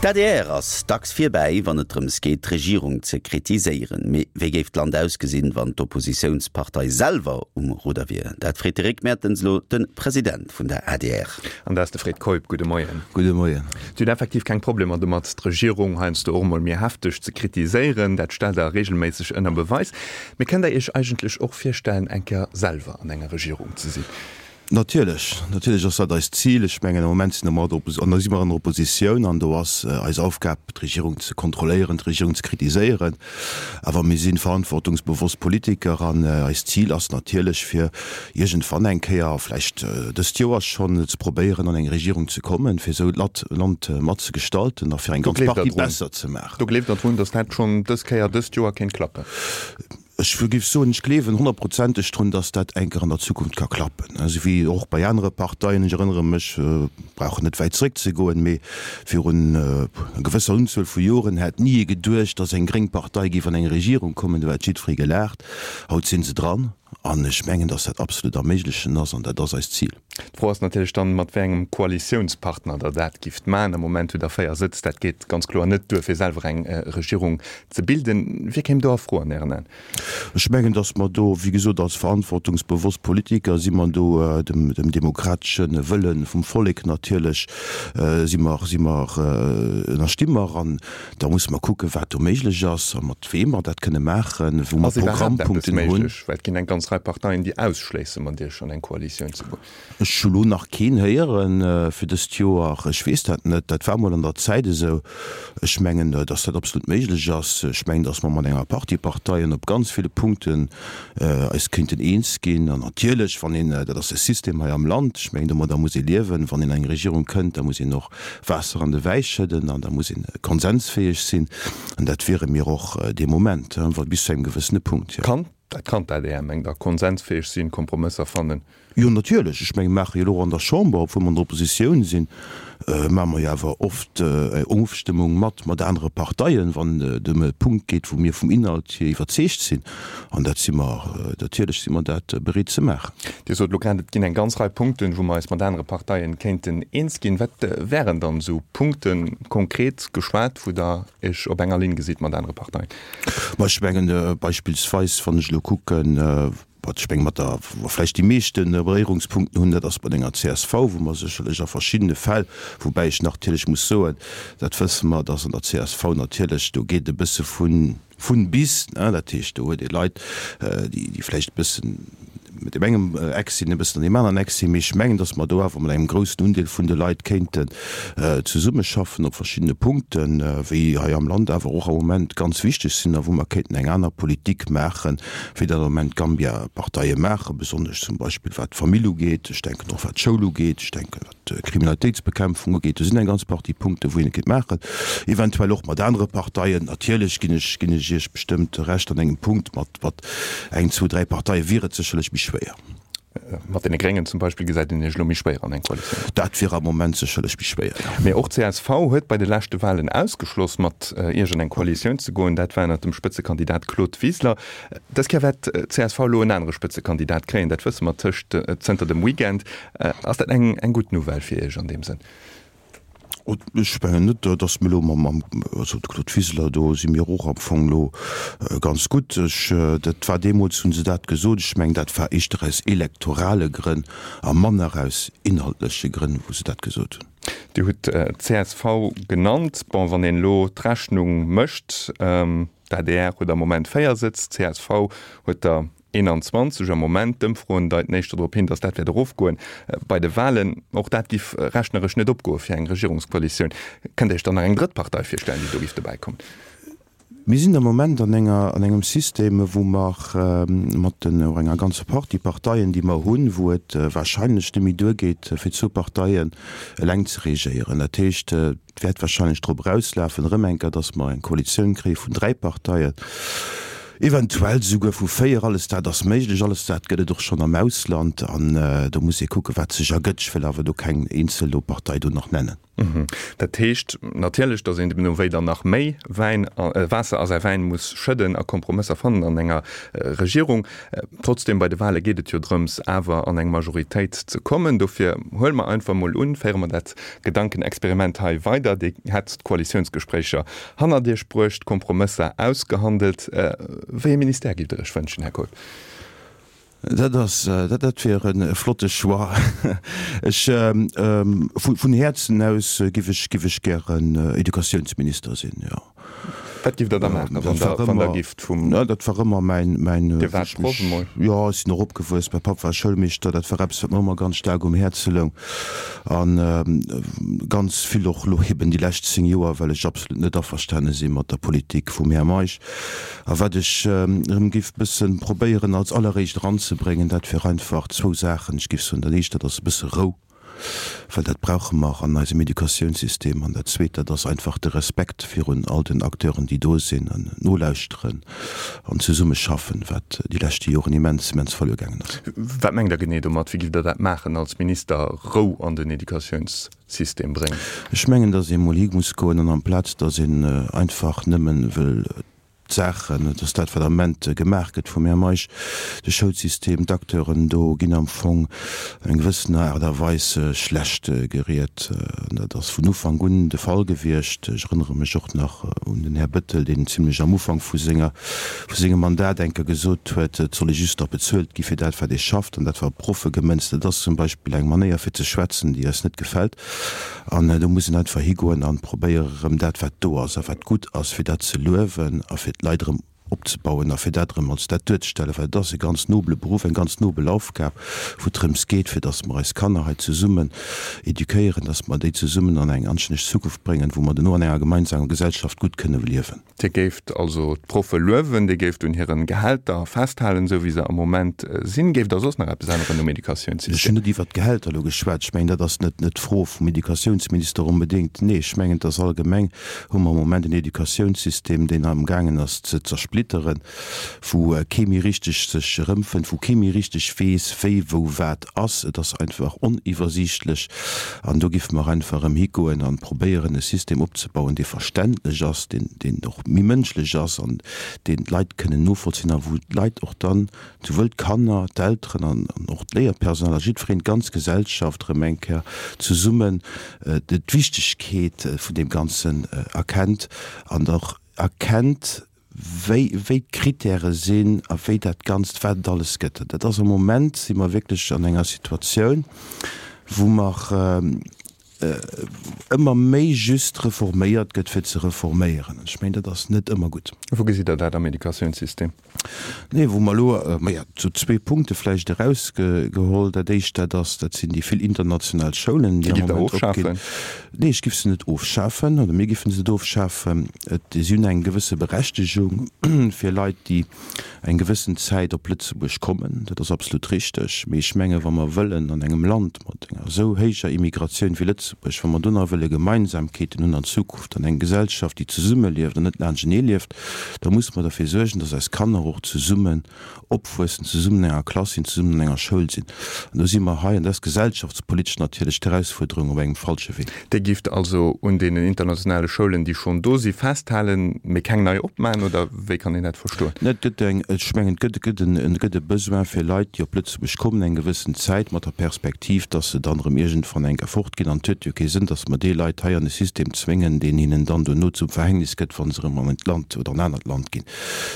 D'adr ass dacks virbäi, wann et drëms geet, d'Regierung ze kritiséieren. Mee wéi géif d'Land ausgesinn, wann d'Oppositiounspartei selwer um Rudder wier? Dat freet de Rick Mertens elo de President vun der adr. An dat ass de Fred Keup. Gudde Moien. Gudde Moien. Dir hutt effektiv keng Problemer domat, d'Regierung heiansdo och emol méi hefteg ze kritiséieren. Dat stellt Der reegelméisseg ënner Beweis. Mee kënnt Der Iech eigentlech och virstellen, eng Kéier selwer an enger Regierung ze sinn? Natierlech, natierlech ass dat eist Zil. Ech mengen, am Moment sinn mer an der, si mer an der Oppositioun an do ass eis Aufgab, d'Regierung ze kontrolléieren, d'Regierung ze kritiséieren. Awer mir si verantwortungsbewosst Politiker an eist Zil ass natierlech, fir iergendwann eng Kéier, vläicht dëst Joer schonn, ze probéieren, an eng Regierung ze kommen, fir esou d'Land mat ze gestalten a fir eng ganz Partie besser ze maachen. Do gleeft Der drun, datt dat schonn dës Kéier, dëst Joer kéint klappen? Ech géif soen, ech gleewen honnertprozenteg drun, dass dat eng Kéier an der Zukunft ka klappen, esou wéi och bei anere Parteien. Ech erënnere mech, brauchen net wäit zréckzegoen, mee virun enger gewësser Unzuel vu Joren hätt ni ee geduecht, dass eng gréng Partei géif an eng Regierung kommen. Do hätt jiddweree gelaacht. Haut si se dran an ech mengen, dass dat absolut am Méiglechen ass an dat ass eist Zil. D'Fro ass natierlech dann, mat wéi engem Koalitiounspartner Der dat gifft maachen. Am Moment hutt Der 4 Sëtz. Dat geet ganz kloer net duer, fir selwer eng Regierung ze bilden. Wie kéim do a Fro an Ären Aen? Ech mengen, datt mer do, wéi gesot, als verantwortungsbewosst Politiker si mer do dem demokratesche Wëlle vum Vollek natierlech si mer, si mer, ënnersti mer. An da musse mer kucken, wat do méiglech ass a mat weem mer dat kënne maachen, wou mer Ass iwwerhaapt eppes Programmpunkten hunn. méiglech? Well et ginn eng ganz Rei Parteien, déi ausschléisse mat Iech an eng Koalitioun ze goen. Ech hu lo nach keen héiere fir dëst Joer. Ech weess dat net. Dat war mol an der Zäit esou. Ech mengen, datt dat absolut méiglech ass. Ech mengen, datt mer mat enger Partie Parteien op ganz ville Punkten eis kéinten eens ginn. An natierlech, wann een, dat ass de System hei am Land, ech mengen, domadder muss ee liewen, wann een an eng Regierung kënnt, da muss een och Waasser an de Wäi schëdden an da muss een konsensfäeg sinn. An dat wiere mir och dee Moment, bis zu engem gewëssene Punkt, jo. Kann dat, kann d'ADR, mengt Der, konsensfäeg sinn, Kompromësser fannen? Jo, natierlech. Ech menge mir maache jo elo och an der Chamber, obwuel mer an der Oppositioun sinn, maache mer jo awer oft eng Ofstëmmung mat mat anere Parteien, wann et ëm e Punkt geet, wou mir vum Inhalt hier iwwerzeegt sinn. An dat si mer, natierlech si mer dat bereet ze maachen. Dir sot elo grad, et ginn eng ganz Rei Punkten, wou mer eis mat anere Parteien kéinten eens ginn. Wat wären dann esou Punkten, konkret geschwat, wou Der Iech op enger Linn gesitt mat anere Parteien? Ma ech mengen beispillsweis, wann ech elo kucken, wat ech menge mat der, wou mer vläicht déi meeschte Beréierungspunkten hunn, dat ass mat enger csv, wou mer sécherlech a verschiddene Fäll, woubäi ech natierlech muss soen, dat wësse mer, dass an der csv natierlech, do geet e bësse vun, Vun bis, dat heescht do huet ee Leit, déi vläicht e bëssen mat deem engem Eck sinn, e bëssen an deem aneren Eck sinn, mee ech mengen, datt mer do awer mat engem groussen Undeel vun de Leit kéinten zesummeschaffen op verschiddene Punkten, wéi hei am Land awer och am Moment ganz wichteg sinn a wou mer kéinten eng aner Politik maachen, wéi dat am Moment d'Gambia-Parteie maachen, besonnesch zum Beispill wat d'Famill ugeet, ech denken och wat d'Schoul ugeet, ech denken wat. d'Kriminalitéitsbekämpfung ugeet, do sinn eng ganz Partie Punkten, wou een et kéint maachen, eventuell och mat anere Parteien. Natierlech ginn ech, ginn ech Iech bestëmmt Recht an engem Punkt, mat, mat eng, zwou, dräi Parteie wier et sécherlech méi schwéier. Mat deene Gréngen zum Beispill gesäit een Iech elo méi schwéier an eng Koalitioun. Dat wier am Moment sécherlech méi schwéier, jo. Mee och csv huet bei de leschte Wahlen ausgeschloss, mat Iech an eng Koalitioun ze goen. Dat war ënnert dem Spëtzekandidat Claude Wiseler. Dës Kéier wäert csv elo en anere Spëtzekandidat kréien, dat wësse mer tëscht zënter dem Weekend. Ass dat eng eng gutt Nouvelle fir Iech an deem Sënn? Ech mengen net, datt mir elo mam, also de Claude Wiseler, do si mir och am Fong elo ganz gutt. Ech, dat war deemools, hu se dat gesot, ech mengen, dat war éischter aus elektorale Grënn a manner aus inhaltleche Grënn, wou se dat gesot hunn. Dir hutt d'CSV genannt. Bon, wann een elo d'Rechnung mécht, d'ADR huet am Moment 4 Sëtz, d'CSV huet der 21 am Moment. D'Ëmfroen deiten éischter drop hin, datt dat wäert erofgoen bei de Walen. Och dat giff rechneresch net opgoe fir eng Regierungskoalitioun. Kënnt Dir Iech dann nach eng drëtt Partei virstellen, déi do giff dobäi kommen? Mir sinn am Moment an enger, an engem System, wou mer mat den, och enger ganzer Partie Parteien, déi mer hunn, wou et wahrscheinlech net méi duergeet, fir zwou Parteien eleng ze regéieren. Dat heescht, Et wäert wahrscheinlech drop erauslafen, erëm eng Kéier, dass mer eng Koalitioun kréie vun dräi Parteien, eventuell souguer vu véier. Alles dat ass méiglech, alles dat gëtt et och schonn am Ausland. An do muss ee kucken, wat sech ergëtt. Ech wëll awer do keng eenzel do Partei do nach nennen. Dat heescht natierlech, datt een deemno wéi dann nach méi Wäin, Waasser a säi Wäin muss schëdden a Kompromësser fannen an enger Regierung. Trotzdem, bei de Wahle geet et jo drëms, awer an eng Majoritéit ze kommen. Dofir huele mer einfach emol un, féiere mer dat Gedankenexperiment hei weider, Dir hätt d'Koalitiounsgespréicher hannert Iech bruecht, Kompromësser ausgehandelt. Wéi ee Ministère giff Der Iech wënschen, Här Keup? Dat ass, dat wier e flotte Choix. Ech, vun Häerzen aus giff ech, giff ech gären Educatiounsminister sinn, jo. Wat giff Der da maachen, wann Der, wann Der gifft vum. Dat war ëmmer mäin, mäin. Dir waart Proff emol? Jo, ech sinn och opgewuess, mäi Papp war Schoulmeeschter, dat war eppes, wat mer ëmmer ganz staark um Häerze loung. An ganz vill och elo eben déi lescht 10 Joer, well ech absolut net averstane si mat der Politik vum Här Meisch. A wat ech erëm géif bësse probéieren als alleréischt eranzebréngen, dat wier einfach zwou Saachen. Ech géif soen, dat éischt, dat ass e bësse Rou, well dat brauche mer an eisem Educatiounssystem. An dat zweet, dat ass einfach de Respekt virun all den Acteuren, déi do sinn, an nolauschteren an zesummeschaffen, wat déi leschte Joren immens, immens verluer gaangen ass. Wat mengt Der genee domat? Wéi giff Der dat maachen als Minister, Rou an den Educatiounssystem bréngen? Ech mengen, datt ee mol hi muss goen an amplaz datt een einfach nëmmen wëll d'Saachen, et ass dat, wat am Ament gemaach gëtt vum Här Meisch, de Schoulsystem, d'Acteuren do ginn am Fong an eng gewëssener Aart a Weis schlecht geriet. An dat ass vun Ufank un de Fall gewiescht. Ech erënnere mech och nach un den Här Bettel, deen zimlech am Ufank vu senger, vu sengem Mandat eng Kéier gesot huet, et soll ee just nach bezuelt gi fir dat, wat ee schafft. An dat war op d'Proffe gemënzt. Dat ass zum Beispill eng Manéier fir ze schwätzen, déi eis net gefält. An do muss een einfach higoen an probéieren erëm dat wat do ass a wat gutt ass, fir dat ze luewen a fir d'Leit erëm opzebauen a fir dat erëm als dat duerzestellen, well et ass e ganz nobele Beruff, eng ganz nobel Aufgab, wou et drëms geet, fir datt mer eis Kanner hei zesummen éduquéieren, datt mer déi zesummen an eng anstänneg Zukunft bréngen, wou mer duerno an enger gemeinsamer Gesellschaft gutt kënne liewen. Dir géift also d'Proffe luewen, Dir géift un hiren Gehälter festhalen, esou wéi se am Moment sinn. Géift Der soss nach eppes änneren um Ech Educatiounssystem? hunn net iwwert d'Gehälter elo geschwat. Ech mengen, dat ass net net d'Fro vum Educatiounsminister onbedéngt. Nee, ech mengen, et ass allgemeng hu mer am Moment en Educatiounssystem, deen amgaangen ass ze zersplitteren, wou kee méi richteg sech erëmfënnt, wou kee méi richteg weess, wéi wou wat ass. Et ass einfach oniwwersiichtlech. An do géife mer einfach erëm higoen an probéieren, e System opzebauen, dee verständlech ass, deen, deen och méi mënschlech ass an deen d'Leit kënnen novollzinn a wou d'Leit och dann, souwuel d'Kanner, d'Elteren an och d'Léierpersonal a jiddwereen, d'ganz Gesellschaft erëm eng Kéier zesummen d'Wichtegkeet vun deem Ganzen erkennt an och erkennt, wéi, wéi d'Kritäre sinn a wéi dat Ganzt, wat et alles gëtt. Dat ass am Moment, si mer wierklech an enger Situatioun, wou mer ëmmer méi just reforméiert gëtt, fir ze reforméieren. An ech mengen, dat ass net ëmmer gutt. Wou gesitt Der dat am Educatiounssystem? Nee, wou mer elo, maja, sou zwee Punkte vläicht erausgeholl. Dat éischt, dat ass, dat sinn déi vill international Schoulen, déi am Moment opginn. Nee, ech giff se net ofschafen, oder mir giffen se net ofschafen. Et, si hunn eng gewësse Berechtegung fir Leit, déi eng gewëssen Zäit op Lëtzebuerg kommen. Dat ass absolut richteg. Mee ech menge wa mer wëllen an engem Land mat enger esou héijer Immigratioun wéi Lëtzebuerg, wa mer do nach wëlle Gemeinsamkeeten hunn an Zukunft an eng Gesellschaft, déi zesummelieft an net laanschtenee lieft, da musse mer derfir suergen, dass eis Kanner och zesummen opwuessen, zesummen an enger Klass sinn, zesummen an enger Schoul sinn. An do si mer hei, an dat ass gesellschaftspolitesch natierlech d'Erausfuerderung, op engem falsche Wee. Dir gifft also un deenen internationale Schoulen, déi schonn do si, festhalen, mee keng nei opmachen, oder wéi kann een dat verstoen? Et gëtt eng, ech mengen, et gëtt, et gëtt en, et gëtt e Besoin fir Leit, déi op Lëtzebuerg kommen eng gewëssen Zäit, mat der Perspektiv, dass se dann erëm iergendwann eng Kéier fortginn. An et huet jo kee Sënn, dass mer déi Leit hei an e System zwéngen, deen hinnen dann duerno zum Verhängnis gëtt, wa se erëm an en Land oder en anert Land ginn.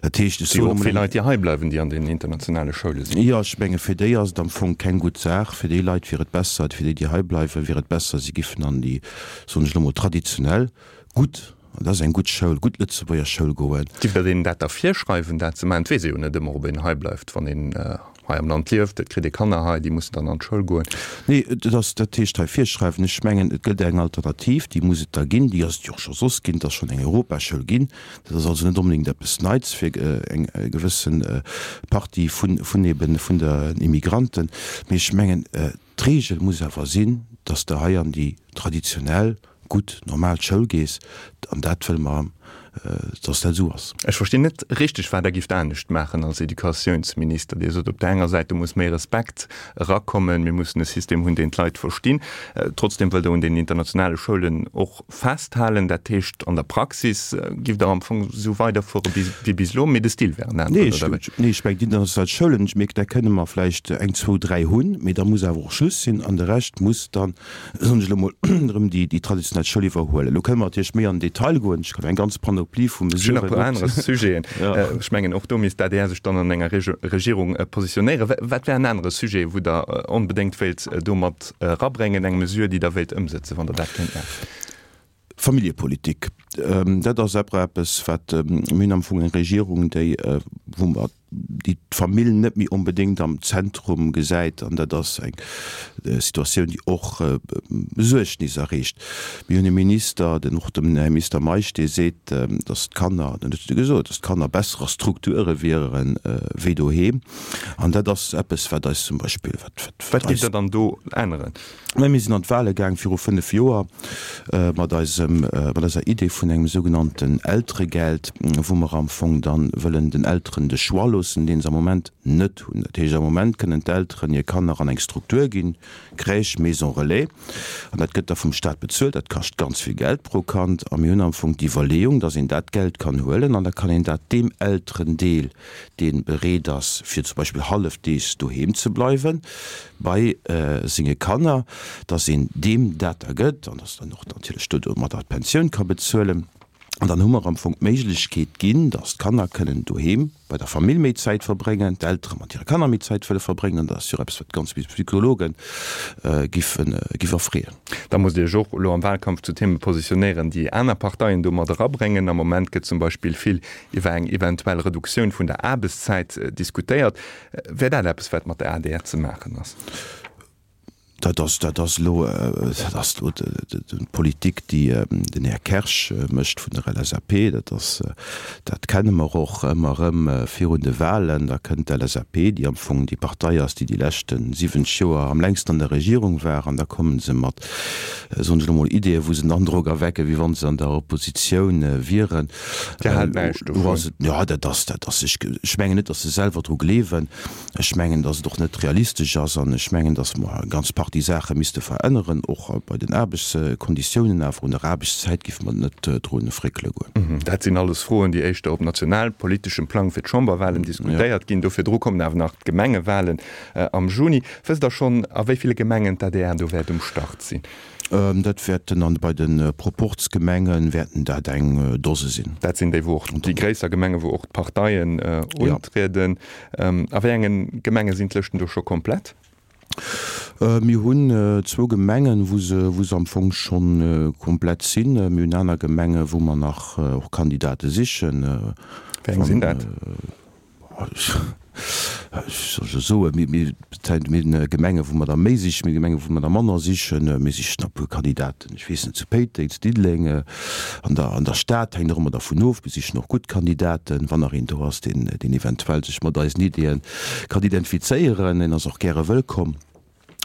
Dat heescht, ech soen emol. Vill Leit, déi hei bleiwen, déi an den internationale Schoule sinn. Jo, ech menge fir déi ass et am Fong keng gutt Saach. Fir déi Leit wier et besser, fir déi, déi hei bleiwen, wier et besser, si giffen an déi, soen ech elo mol, traditionell gutt, an dat ass eng gutt Schoul, gutt Lëtzebuerger Schoul goen. Giff Der deenen dat da virschreiwen, dat ze maachen? Et weess ee jo net ëmmer, ob een hei bleift, wann een hei am Land lieft. Et kritt ee Kanner hei, déi mussen dann an d'Schoul goen. Nee, et ass, dat heescht hei virschreiwen, ech mengen, et gëtt eng Alternativ, déi muss et da ginn, déi ass et jo och scho soss ginn, et ass schonn eng Europaschoul ginn. Dat ass also net onbedéngt eppes Neits fir eng gewësse Partie vun, vun eben, vun der Immigranten. Mee ech mengen, d'Regel muss awer sinn, dass de hei an déi traditionell, gutt, normal Schoul gees. An dat wëlle mer. Dass dat esou ass. Ech verstinn net richteg, wat Der gifft anescht maachen als Educatiounsminister. Dir sot op der enger Säit, do muss méi Respekt erakommen, mir mussen e System hunn, deen d'Leit verstinn. Trotzdem wëllt Der un den internationale Schoulen och festhalen. Dat heescht, an der Praxis gifft Der am Fong esou weiderfuere wéi bis elo, mee de Stil wär en aneren, oder wéi? Nee, ech mengen, déi international Schoulen, ech mierken, där kënne mer vläicht eng, zwou, dräi hunn, mee da muss awer och Schluss sinn an de Rescht muss dann soen ech elo mol, erëm déi traditionell Schoul iwwerhuelen. Elo kënne mer natierlech méi an den Detail goen. Ech kann eng ganz Panoplie vu Ech hunn nach e puer aner Sujeten. Ech mengen, och do misst d'ADR sech dann an enger Regierung positionéieren. Wat wär en anere Sujet, wou Der onbedéngt wéilt do mat erabréngen, eng Mesure, déi Der wéilt ëmsëtzen, wann Der dat kéint maachen? Familljepolitik, dat ass eppes, wat, mir hunn am Fong eng Regierung, déi, wou mer, déi d'Famill net méi onbedéngt am Zentrum gesäit, an dat ass eng Situatioun, déi och Besuergnis erreegt. Mir hunn e Minister, den och den Här Minister Meisch, dee seet, datt d'Kanner, dat huet e gesot, datt d'Kanner besser a Strukture wiere wéi doheem. An dat ass eppes, wat eis zum Beispill, wat, wat eis. Wat géif Der dann do änneren? Mä mir sinn an d'Wahle gaang viru 5 Joer mat eisem, mat eiser Idee vun engem sougenannten Elteregeld, wou mer am Fong dann wëllen den Elteren de Choix loossen, deen se am Moment net hunn. Dat heescht, am Moment kënnen d'Elteren hir Kanner an eng Struktur ginn, Crèche, Maison relais, an dat gëtt da vum Stat bezuelt. Dat kascht ganz vill Geld pro Kand. A mir hunn am Fong d'Iwwerleeung, dass een dat Geld kann huelen an da kann een dat deem Elterendeel, dee bereet ass, fir zum Beispill hallefdeegs doheem ze bleiwe bei senge Kanner, dass een deem dat da gëtt an dass dann och natierlech do domadder d'Pensioun ka bezuelen. An dann hu mer am Fong d'Méiglechkeet ginn, dass d'Kanner kënnen doheem bei der Famill méi Zäit verbréngen, d'Eltere mat hire Kanner méi Zäit wëlle verbréngen. An dat ass jo och eppes, wat ganz vill Psychologe giffen, giff erfreeën. Da musst Dir Iech och elo am Wahlkampf zu Theme positionéieren, déi aner Parteien do mat erabréngen. Am Moment gëtt zum Beispill vill iwwer eng eventuell Reduktioun vun der Aarbechtszäit diskutéiert. Wär dat eppes, wat mat der adr ze maachen ass? Dat ass, dat ass elo, dat ass elo d'Politik, déi den Här Kersch mécht vun der LSAP. Dat ass, dat kenne mer och ëmmer erëm virun de Wahlen. Da kënnt d'LSAP, déi am Fong déi Partei ass, déi déi leschte 70 Joer am längsten an der Regierung war, an da komme se mat, soen ech elo mol, Ideeën, wou se den Androck erwecken, wéi wa se an der Oppositioun wieren. Dir haalt näischt dovun? Jo, dat ass, dat ass, ech, ech mengen net, datt se selwer dru gleewen. Ech mengen, datt et och net realistesch ass an ech mengen, datt mer eng ganz Partie Saache misste veränneren, och bei den Aarbechtskonditiounen. Awer un der Aarbechtszäit géife mer net dru fréckele goen. Dat sinn alles Froen, déi éischter op nationalpoliteschem Plang fir d'Chamberwahlen diskutéiert ginn. Do virdru kommen awer nach d'Gemengewahlen am Juni. Wësst Der schonn, a wéi ville Gemengen d'ADR do wäert um Start sinn? Dat wäerten an bei de Proporzgemenge wäerten dat eng Dose sinn. Dat sinn déi, wou och déi gréisser Gemengen, wou och d'Parteien untrieden. A wéi enge Gemenge sinn d'Lëschten do scho komplett? Mir hunn zwou Gemengen, wou se, wou se am Fong scho komplett sinn. Mir hunn aner Gemenge wou mer nach och Kandidate sichen. Wéi eng sinn dat? Ech soll soen, mir hunn Gemenge wou mer der méi sichen, mir hu Gemenge wou mer der manner sichen. Mir sichen e puer Kandidaten, ech weess net, zu Péiteng, zu Diddeleng, an der an der Stad, hänkt och ëmmer dervun of. Mir sichen och gutt Kandidaten. Wann nach een do ass, deen deen eventuell sech mat eisen Ideeë kann identifizéieren, deen ass och gäre wëllkomm.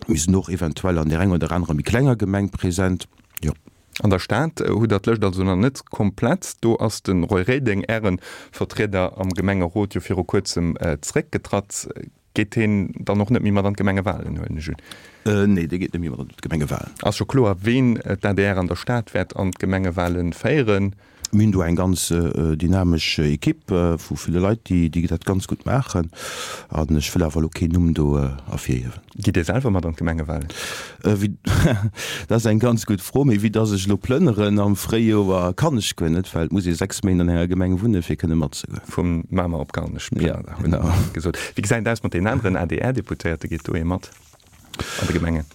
Mir sinn och eventuell an där enger oder anerer méi klenger Gemeng present, jo. An der Stad hutt der d'Lëscht also nach net komplett. Do ass de Roy Reding, Äre Vertrieder am Gemengerot, jo viru kuerzem zeréckgetratt. Geet heen dann och net méi mat an d'Gemengewalen, huelen ech un? Nee, dee geet net méi mat an d'Gemengewalen. Ass scho kloer, ween d'ADR an der Stad wäert an d'Gemengewale féieren? Mir hunn do eng ganz dynamesch Ekipp vu ville Leit, déi dat ganz gutt maachen. An ech wëll awer elo keen Numm do ervirhiewen. Gitt Dir selwer mat an d'Gemengewalen? Dat ass eng ganz gutt Fro. Mee vue dass ech elo plënneren am Fréijoer, kann ech guer net, well et muss ee 6 Méint an enger Gemeng wunnen, fir kënne matzegoen. Vu Mamer op Garnech plënnert Der, hutt Der gesot. Wéi gesäit et aus mat deenen aneren ADR-Deputéierte? Geet do ee mat an de Gemengen?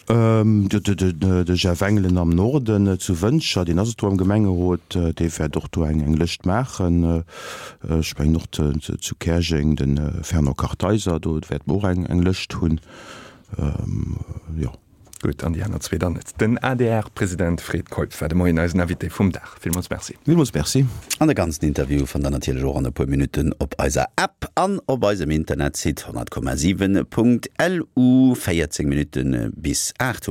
De Jeff Engelen am Norden zu Wëntger, deen ass et do am Gemengerot, dee wäert och do eng Lëscht maachen. Ech mengen och zu Käerjeng de Fernand Kartheiser, do wäerte mer och eng Lëscht hunn. Jo. Gutt, an déi aner zwee dann net. Den ADR-President Fred Keup war de Moien eisen Invité vum Dag. Villmools Merci. Villmools Merci. An de ganzen Interview fannt der natierlech och an e puer Minutten op eiser App an op eisem Internetsite 100,7.lu. 14 Minutte bis 8 hu.